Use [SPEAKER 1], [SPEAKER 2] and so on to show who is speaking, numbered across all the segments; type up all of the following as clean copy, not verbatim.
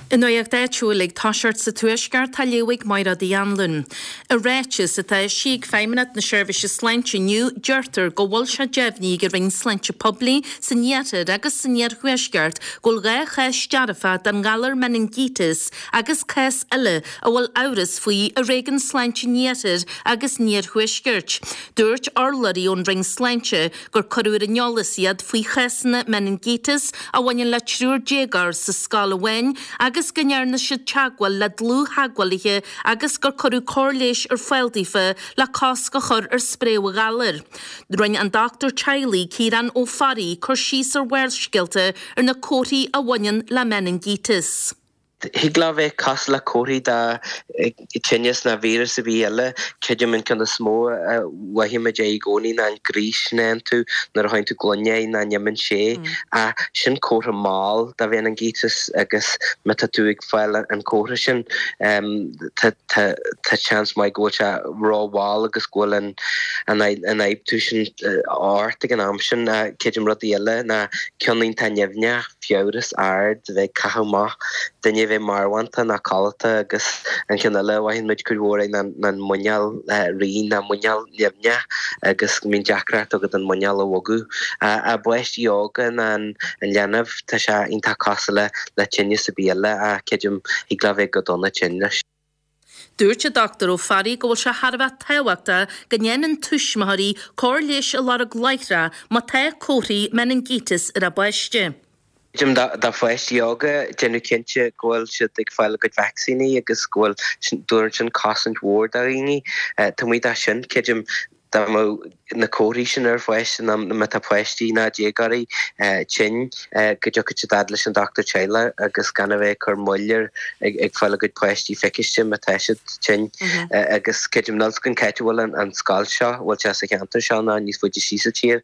[SPEAKER 1] An nuacht áitiúil ag toiseacht sa Tuaisceart á léamh ag Mairéad Uí Anluain. I ráiteas atá eisithe ag Feidhmeannacht na Seirbhíse Sláinte inniu, deirtear go bhfuil sé deimhnithe ag an Roinn Sláinte Poiblí san Iarthar agus san Iarthuaisceart go bhfuil 2 chás dearfa den ghalar meiningíteas agus cás eile a bhfuil amhras faoi i Réigiún Sláinte an Iarthair agus an Iarthuaiscirt. Dúirt urlabhraí ón Roinn Sláinte gur cuireadh ar an eolas iad faoi chásanna meiningíteas a bhaineann le triúr déagóir sa scoil amháin agus go ndearna siad teagmháil le dlúth-theagmhálaithe agus gur cuireadh cóir leighis ar fáil daofa le cosc a chur ar spréadh an ghalair. Rinne an dochtúir teaghlaigh, Ciarán Ó Fearraigh, cur síos ar Bharrscéalta ar na comharthaí a bhaineann le meiningíteas.
[SPEAKER 2] Thig leo bheith cosúil le comharthaí de tinneas nó víreas ar bith eile. Creidim an ceann is mó a mhothaímid é i gcónaí ná an gríos sin a fhaigheann tú nuair a sháigheann tú gloine é nach n-imíonn sé. Ach sin comhartha mall de mheiningíteas agus má tá tú ag fáil an comhartha sin tá seans maith go bhfuil sé rómhall agus go bhfuil an ionfhabhtú sin ort ag an am sin. Creidim rudaí eile ná ceann iontach nimhneach. fiabhras ard, bheith ag caitheamh amach, duine a bheith marbhánta ná codlata agus an ceann eile a mhothaíonn muid cuid mhór é ná an muineál righin ná muineál nimhneach agus go mbíonn deacracht agat an muineál a bhogadh. I bpáistí óga ná an leanbh tá sé iontach cosúil le tinneas ar bith eile ach creidim thig leo bheith go dona tinn leis.
[SPEAKER 1] Dúirt an Dr Ó Fearraigh go bhfuil sé thar a bheith tábhachtach go ndéanann tuismitheoirí cóir leighis a lorg láithreach má tá comharthaí meiningíteas ar a bpáiste.
[SPEAKER 2] Creidim do pháistí óga, déanamh cinnte go bhfuil siad ag fáil a gcuid vacsaíní agus go bhfuil, tabharann sin cosaint mhór do dhaoine. Taobh amuigh de sin, creidim dá mbeadh na comharthaí sin ar pháiste nó má tá páistí ná déagóirí tinn go dtiocfadh siad fhad leis an dochtúir teaghlaigh agus gan a bheith ag cur moill ar ag fáil a gcuid páistí feiciste má tá siad tinn. Agus creidim níl 's agam cá háit a bhfuil an scoil seo, bhfuil sé sa cheantar seo nó níos faide síos sa tír,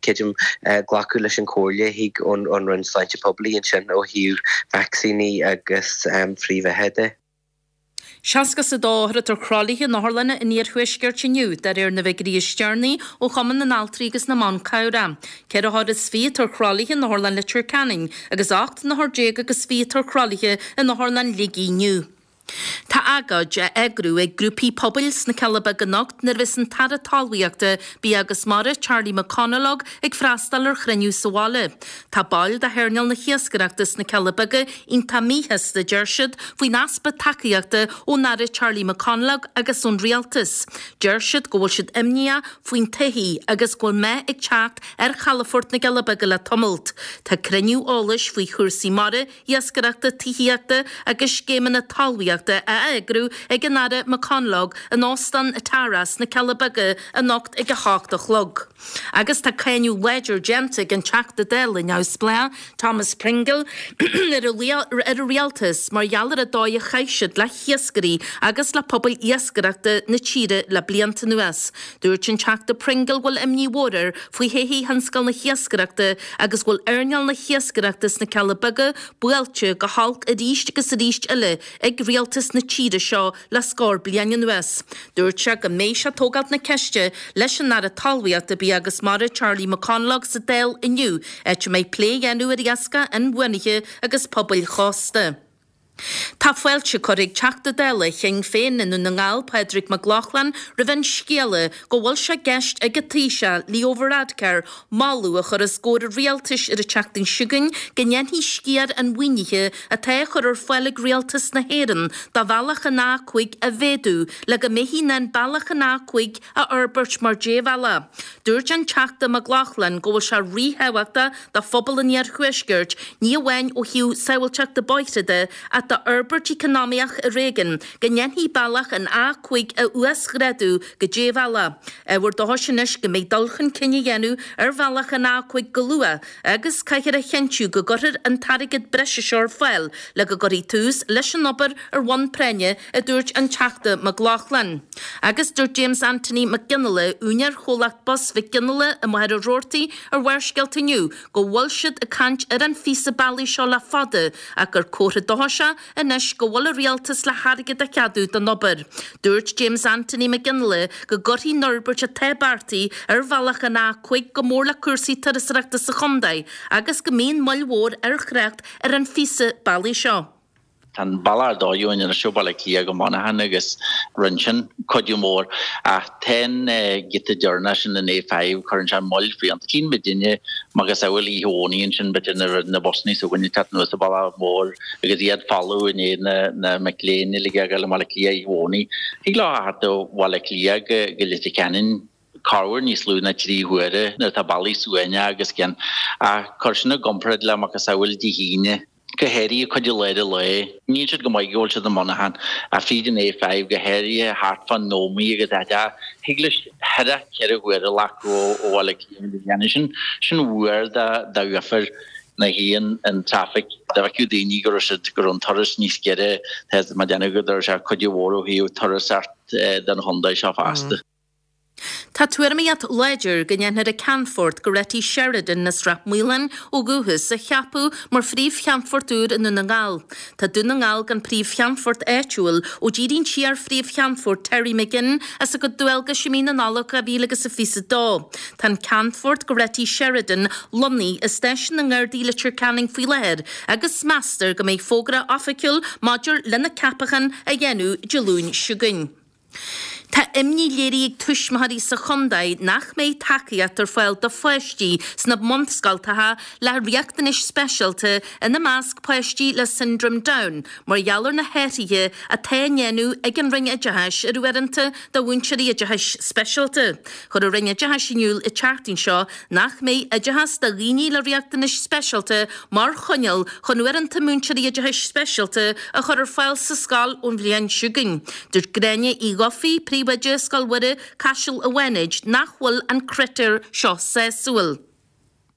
[SPEAKER 2] creidim glacadh leis an chomhairle a thig ón Roinn Sláinte Poiblí ansin ó thaobh vacsaíní agus frithbheatha de.
[SPEAKER 1] 62 othar atá ar thralaithe in otharlanna an iarthuaiscirt inniu, de réir na bhfigiúirí is deireanaí ó Chumann na nAltraí agus na mBan Cabhrach. Ceithre othar is fiche atá ar thralaithe in Otharlann Leitir Ceanainn agus 18 n-othar agus fiche atá ar thralaithe in Otharlann Shligigh inniu. Tá agóid á eagrú ag grúpaí pobail sna Cealla Beaga anocht nuair a bheas an tAire Talmhaíochta, Bia agus Mara, Charlie McConalogue, ag freastal ar chruinniú sa bhaile. Tá baill de hearnáil na hiascaireachta sna Cealla Beaga iontach míshásta, deir siad, faoin easpa tacaíochta ón Aire Charlie McConalogue agus ón Rialtas. Deir siad go bhfuil siad imníoch faoin todhchaí agus go bhfuil meath ag teacht ar chalafort na gCealla Beaga le tamalt. Tá cruinniú eolais faoi chúrsaí mara, iascaireachta, tithíochta agus scéimeanna talmhaíochta á eagrú ag an Aire McConalogue in Óstán Tara sna Cealla Beaga anocht ag 8 a chlog. Agus tá cáineadh láidir déanta ag an Teachta Dála neamhspleách, Thomas Pringle, ar an Rialtas mar gheall ar an dóigh a chaith siad le hiascairí agus le pobail iascaireachta na tíre le blianta anuas. Dúirt an Teachta Pringle go bhfuil imní mhór air faoi thodhchaí thionscal na hiascaireachta agus go bhfuil earnáil na hiascaireachta sna Cealla Beaga buailte go holc arís agus arís eile ag rialtas na tíre seo le scór bliain anuas. Dúirt sé go mbeidh sé ag tógáilt na ceiste leis an Aire Talmhaíochta, Bia agus Mara Charlie McConalogue sa Dáil inniu, áit a mbeidh plé á dhéanamh ar iascach inbhuanaithe agus pobail chósta. Tá fáilte curtha ag Teachta Dála Shinn Féin i nDún na nGall, Pádraig Mac Lochlainn, roimh an scéala go bhfuil sé i gceist ag an Taoiseach, Leo Varadkar, moladh a chur os comhair an rialtais ar an tseachtain seo chugainn go ndéanfaí sciar an mhaoinithe atá á chur ar fáil ag Rialtas na hÉireann do bhealach an A5 a mhéadú le go mbeifí in ann bealach an A5 a fhorbairt mar débhealach. Dúirt an Teachta Mac Lochlainn go bhfuil sé ríthábhachtach do phobal an iarthuaiscirt, ní amháin ó thaobh sábháilteachta bóithre de ach d'fhorbairt eacnamaíoch i réigiún, go ndéanfaí bealach an A5 a uasghrádú go débhealach. Ábhar dóchais anois go mbeidh dul chun cinn á dhéanamh ar bhealach an A5 go luath agus caithfear a chinntiú go gcuirfear an t-airgead breise seo ar fáil le go gcuirfí tús leis an obair ar bhonn práinne, a dúirt an Teachta Mac Lochlainn. Agus dúirt James Anthony Mac Fhionnghaile, úinéir chomhlacht bus Mhic Fhionnghaile i Machaire Rabhartaigh ar Bharrscéalta inniu go bhfuil siad ag caint ar an phíosa bealaigh seo le fada ach gur comhartha dóchais é anois go bhfuil an rialtas le hairgead a cheadú don obair. Dúirt James Anthony Mac Fhionnghaile go gcuirfidh an fhorbairt atá beartaithe ar bhealach an A5 go mór le cúrsaí turasóireachta sa chontae agus go mbíonn moill mhór ar thrácht ar an phíosa bealaigh seo.
[SPEAKER 3] Tá an bealach ar dóigh uainn anois ó Bhaile Átha Cliath go Muineachán agus rinne sin cuidiú mór. Ach tá an giota deireanach sin an A5, cuireann sé moill fiúntach. Tchíonn muidinne macasamhail oíche Dhomhnaigh ansin b'fhéidir nuair a bhí na busannaí s'againne ag teacht anuas an bealach mór agus iad folamh i ndiaidh na mic léinn uilig a ghabháil i mBaile Átha Cliath oíche Dhomhnaigh. Thig leo a theacht ó Bhaile Átha Cliath go Leitir Ceanainn corruair níos lú ná 3 huaire nuair atá bealaí suaimhneach agus cian. Ach cuir sin i gcomparáid le macasamhail Dé hAoine. go háirithe cuid i lár an lae. Níl siad go maith go bhfuil siad i Muineachán ach fríd an A5 go háirithe thart fán Ómaigh agus áit a thig leis thar 4 huaire a ghlacadh ó Bhaile Átha Cliath go dhéanamh sin. Sin uair d'uafar na haon an traffic dá bhfeicfeadh daoine go raibh siad go raibh an turas níos giorra tá mé ag déanamh go raibh sé cuidiú mhór ó thaobh turasóireacht don chontae seo fosta.
[SPEAKER 1] Tá tuairimíocht láidir go ndéanfar an Ceannfort Goretti Sheridan as Ráth Maoláin ó dhúchas a cheapadh mar phríomh-cheannfort úr i nDún na nGall. Tá Dún na nGall gan príomh-cheannfort áitiúil ó d'éirigh an t-iar-phríomh-cheannfort Terry McGinn as a gcuid dualgais i mí na Nollag 2022. Tá an Ceannfort Goretti Sheridan lonnaithe i Stáisiún na nGardaí Leitir Ceanainn faoi láthair agus meastar go mbeidh fógra oifigiúil maidir lena ceapachán á dhéanamh Dé Luain seo chugainn. Tá imní léirithe ag tuismitheoirí sa chontae nach mbeidh tacaíocht ar fáil do pháistí sna bunscoltacha le riachtanais speisialta, ina measc páistí le Siondróm Down, mar gheall ar na hathruithe atá á ndéanamh ag an Roinn Oideachais ar uaireanta do mhúinteoirí oideachais speisialta. Chuir an Roinn Oideachais in iúl an tseachtain seo nach mbeidh oideachas do dhaoine le riachtanais speisialta mar choinníoll chun uaireanta múinteoirí oideachais speisialta a chur ar fáil sa scoil ón bhliain seo chugainn. Dúirt Gráinne Uí Dhufaigh, Príomhoide Scoil Mhuire, Caiseal an Bhánait, nach bhfuil an critéar seo sásúil.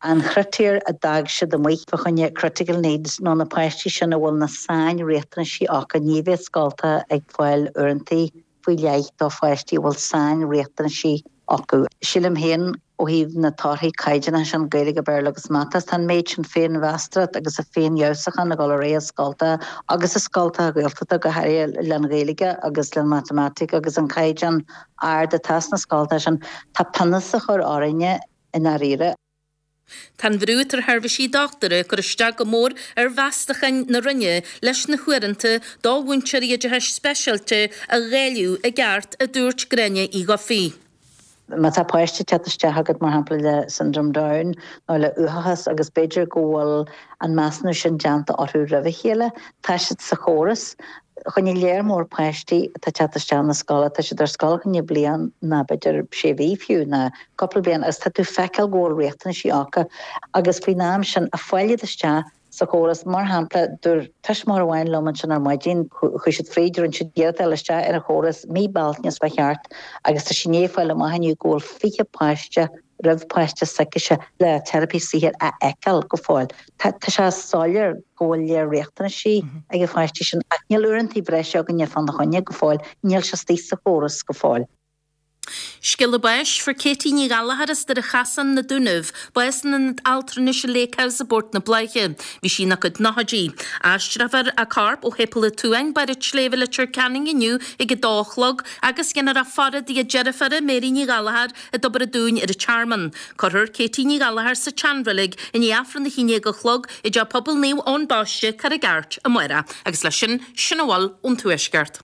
[SPEAKER 4] An chritéar a d'fhág siad amuigh fá choinne critical needs nó na páistí sin a bhfuil na sain-riachtanaisí acu, ní bheidh scoltacha ag fáil uaireanta faoi leith do pháistí a bhfuil sain-riachtanaisí acu. Sílim féin, ó thaobh na torthaí caighdeánacha sin, Gaeilge, Béarla agus Mata, tá an méid sin féinmheastóireacht agus a féinfheabhsúchán ag dul ar aghaidh i scoltacha agus i scoltacha Gaeltachta go háirithe len Ghaeilge agus len Matamaitic agus an caighdeán ard atá sna scoltacha sin, tá pionós á chur orainne i ndáiríre.
[SPEAKER 1] Tá an bhrú atá ar sheirbhísí dochtúra ag cur isteach go mór ar mheastacháin na Roinne leis na huaireanta do mhúinteoirí oideachais speisialta a dháileadh i gceart, a dúirt Gráinne Uí Dhufaigh.
[SPEAKER 4] Má tá páiste ag teacht isteach agat, mar shampla, le Syndrome Down nó le uathachas agus b'fhéidir go bhfuil an measúnú sin déanta orthu roimh a chéile, tá siad sa chóras. Fá choinne léar mór páistí atá ag teacht isteach na scoile, tá siad ar scoil fá choinne bliain ná b'fhéidir sé mhí fiú, ná cúpla bliain agus tá tú ag feiceáil go bhfuil riachtanaisí acu agus faoin am sin ag fáil iad isteach sa chóras. Mar shampla, dúirt tuismitheoir amháin liom ansin ar maidin, chuaigh siad fríd, rinne siad iarracht fháil isteach ar an chóras mí Bealtaine is fá cheart agus tá sí i ndiaidh fáil amach inniu go bhfuil 20 páiste roimh páiste s'aicise le teiripí saothair a fheiceáil go fóill. Tá sé soiléir go bhfuil léar riachtanaisí ag na páistí sin ach níl uaireanta breise againne fána choinne go fóill, níl sé istigh sa chóras go fóill.
[SPEAKER 1] Scéala báis, Fuair Katie Ní Ghallachair as Doire Chasáin, Na Dúnaibh, bás in Ionad Altranais an Lake House i bPort na Bláiche. Bhí sí ina cuid nóchaidí. Aistreofar a corp ó Shéipéal an tSuain, Barr an tSléibhe, Leitir Ceanainn inniu ag 2 a chlog agus dhéanfar a faire dtigh a deirféara, Mary Ní Ghallachair, i dTobar an Dúin ar an Tearmann. Cuirfear Katie Ní Ghallachair sa tseanreilig i ndiaidh Aifreann 11 a chlog i dTeach Pobail Naomh Eoin Baiste, Carraig Airt, amárach. Agus leis sin, sin a bhfuil ón Tuaisceart.